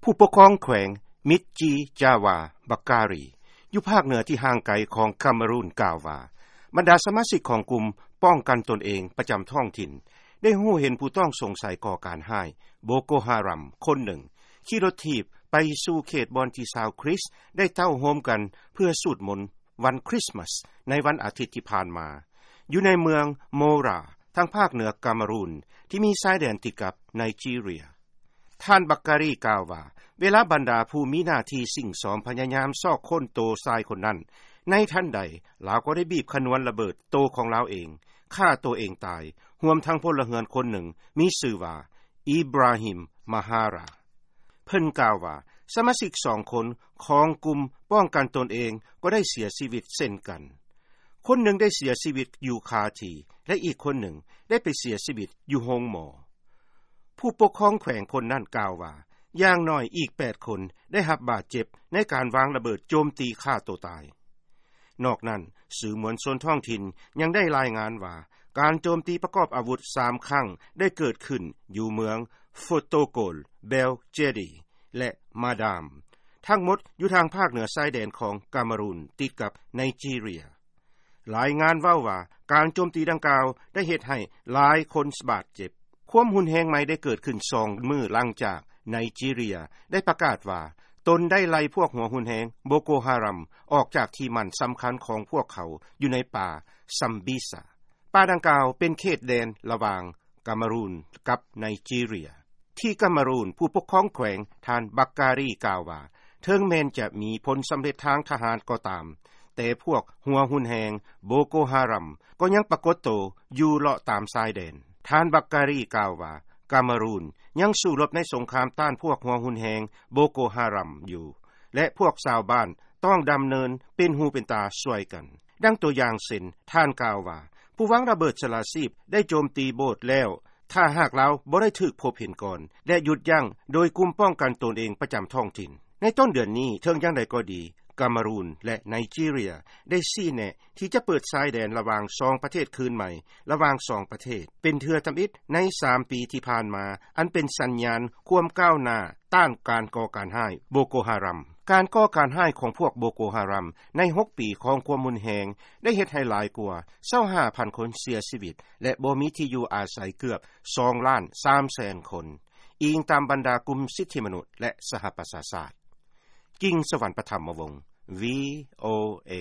ຜູ້ປົກຄອງແຂວງ ມິດຈີຈາວາ ບັກກາຣີ ຢູ່ພາກເໜືອທີ່ຫ່າງໄກຂອງກາເມຣູນ ກ່າວວ່າ ບັນດາສະມາຊິກຂອງກຸ່ມປ້ອງກັນຕົນເອງປະຈຳທ້ອງຖິ່ນ ໄດ້ຮູ້ເຫັນຜູ້ຕ້ອງສົງໄສກໍ່ການຮ້າຍ ໂບໂກຮາຣຳ ຄົນໜຶ່ງ ຂີ່ລົດຖີບໄປສູ່ເຂດບ່ອນທີ່ຊາວຄຣິສໄດ້ເຕົ້າໂຮມກັນເພື່ອສູດມົນວັນຄຣິສມາສ ໃນວັນອາທິດທີ່ຜ່ານມາ ຢູ່ໃນເມືອງໂມຣາ ທາງພາກເໜືອກາເມຣູນ ທີ່ມີຊາຍແດນຕິດກັບໄນຈີເຣຍ. ທ່ານ ບັກກາຣີ ກ່າວວ່າ ເວລາບັນດາຜູ້ມີໜ້າທີ່ຊິງຊອມພະຍາຍາມຊອກຄົ້ນໂຕຊາຍຄົນນັ້ນ ໃນທັນໃດລາວກໍໄດ້ບີບຂະນວນລະເບີດໂຕຂອງລາວເອງ, ຂ້າໂຕເອງຕາຍ, ຮວມທັງພົນລະເຮືອນຄົນໜຶ່ງ ມີຊື່ວ່າ ອີບຣາຮິມ ມາຮາຣາ. ເພິ່ນກ່າວວ່າ ສະມາຊິກສອງຄົນຂອງກຸ່ມປ້ອງກັນຕົນເອງກໍໄດ້ເສຍຊີວິດເຊັ່ນກັນ. ຄົນໜຶ່ງໄດ້ເສຍຊີວິດຢູ່ຄາທີ່ ແລະ ອີກຄົນໜຶ່ງໄດ້ໄປເສຍຊີວິດຢູ່ໂຮງໝໍ. ຜູ້ປົກຄອງແຂວງຄົນນັ້ນກ່າວວ່າ ຢ່າງໜ້ອຍອີກແປດຄົນໄດ້ຮັບບາດເຈັບໃນການວາງລະເບີດໂຈມຕີຂ້າໂຕຕາຍ. ນອກນັ້ນ, ສື່ມວນຊົນທ້ອງຖິ່ນຍັງໄດ້ລາຍງານວ່າ ການໂຈມຕີປະກອບອາວຸດສາມຄັ້ງໄດ້ເກີດຂຶ້ນຢູ່ເມືອງໂຟໂຕໂກລ, ເບລເຈດີ ແລະ ມາດາມ, ທັງໝົດຢູ່ທາງພາກເໜືອຊາຍແດນຂອງກາເມຣູນ ຕິດກັບໄນຈີເຣຍ. ລາຍງານເວົ້າວ່າ ການໂຈມຕີດັ່ງກ່າວໄດ້ເຮັດໃຫ້ຫຼາຍຄົນບາດເຈັບ. ຄວາມຮຸນແຮງໃໝ່ໄດ້ເກີດຂຶ້ນສອງມື້ຫຼັງຈາກໄນຈີເຣຍໄດ້ປະກາດວ່າ ຕົນໄດ້ໄລ່ພວກຫົວຮຸນແຮງໂບໂກຮາຣຳ ອອກຈາກທີ່ໝັ້ນສຳຄັນຂອງພວກເຂົາຢູ່ໃນປ່າຊຳບິຊາ. ປ່າດັ່ງກ່າວເປັນເຂດແດນລະຫວ່າງກາເມຣູນກັບໄນຈີເຣຍ. ທີ່ກາເມຣູນ, ຜູ້ປົກຄອງແຂວງ ທ່ານ ບັກກາຣີ ກ່າວວ່າ ເຖິງແມ່ນຈະມີຜົນສຳເລັດທາງທະຫານກໍຕາມ, ແຕ່ພວກຫົວຮຸນແຮງໂບໂກຮາຣຳ ກໍຍັງປາກົດໂຕຢູ່ເລາະຕາມຊາຍແດນ. ທ່ານ ບັກກາຣີ ກ່າວວ່າ ກາເມຣູນຍັງສູ້ລົບໃນສົງຄາມຕ້ານພວກຫົວຮຸນແຮງໂບໂກຮາຣຳຢູ່ ແລະ ພວກຊາວບ້ານຕ້ອງດຳເນີນເປັນຫູເປັນຕາຊ່ວຍກັນ. ດັ່ງຕົວຢ່າງເຊັ່ນ, ທ່ານກ່າວວ່າ ຜູ້ວາງລະເບີດສະຫຼະຊີບໄດ້ໂຈມຕີໂບດແລ້ວ ຖ້າຫາກລາວບໍ່ໄດ້ຖືກພົບເຫັນກ່ອນ ແລະ ຢຸດຢັ້ງໂດຍກຸ່ມປ້ອງກັນຕົນເອງປະຈຳທ້ອງຖິ່ນ. ໃນຕົ້ນເດືອນນີ້, ເຖິງຢ່າງໃດກໍດີ, ກາເມຣູນ ແລະ ໄນຈີເຣຍ ໄດ້ຊີ້ແນະທີ່ຈະເປີດຊາຍແດນລະຫວ່າງສອງປະເທດຄືນໃໝ່ ລະຫວ່າງສອງປະເທດ ເປັນເທື່ອທຳອິດໃນສາມປີທີ່ຜ່ານມາ, ອັນເປັນສັນຍານຄວາມກ້າວໜ້າ ຕ້ານການກໍ່ການຮ້າຍໂບໂກຮາຣຳ. ການກໍ່ການຮ້າຍຂອງພວກໂບໂກຮາຣຳໃນຫົກປີຂອງຄວາມຮຸນແຮງ ໄດ້ເຮັດໃຫ້ຫຼາຍກວ່າຊາວຫ້າພັນຄົນເສຍຊີວິດ ແລະ ບໍ່ມີທີ່ຢູ່ອາໄສເກືອບສອງລ້ານສາມແສນຄົນ, ອີງຕາມບັນດາກຸ່ມສິດທິມະນຸດ ແລະ ສະຫະປະຊາຊາດ. ກິງສະຫວັນ ປະຖຳມະວົງ, ວີໂອເອ.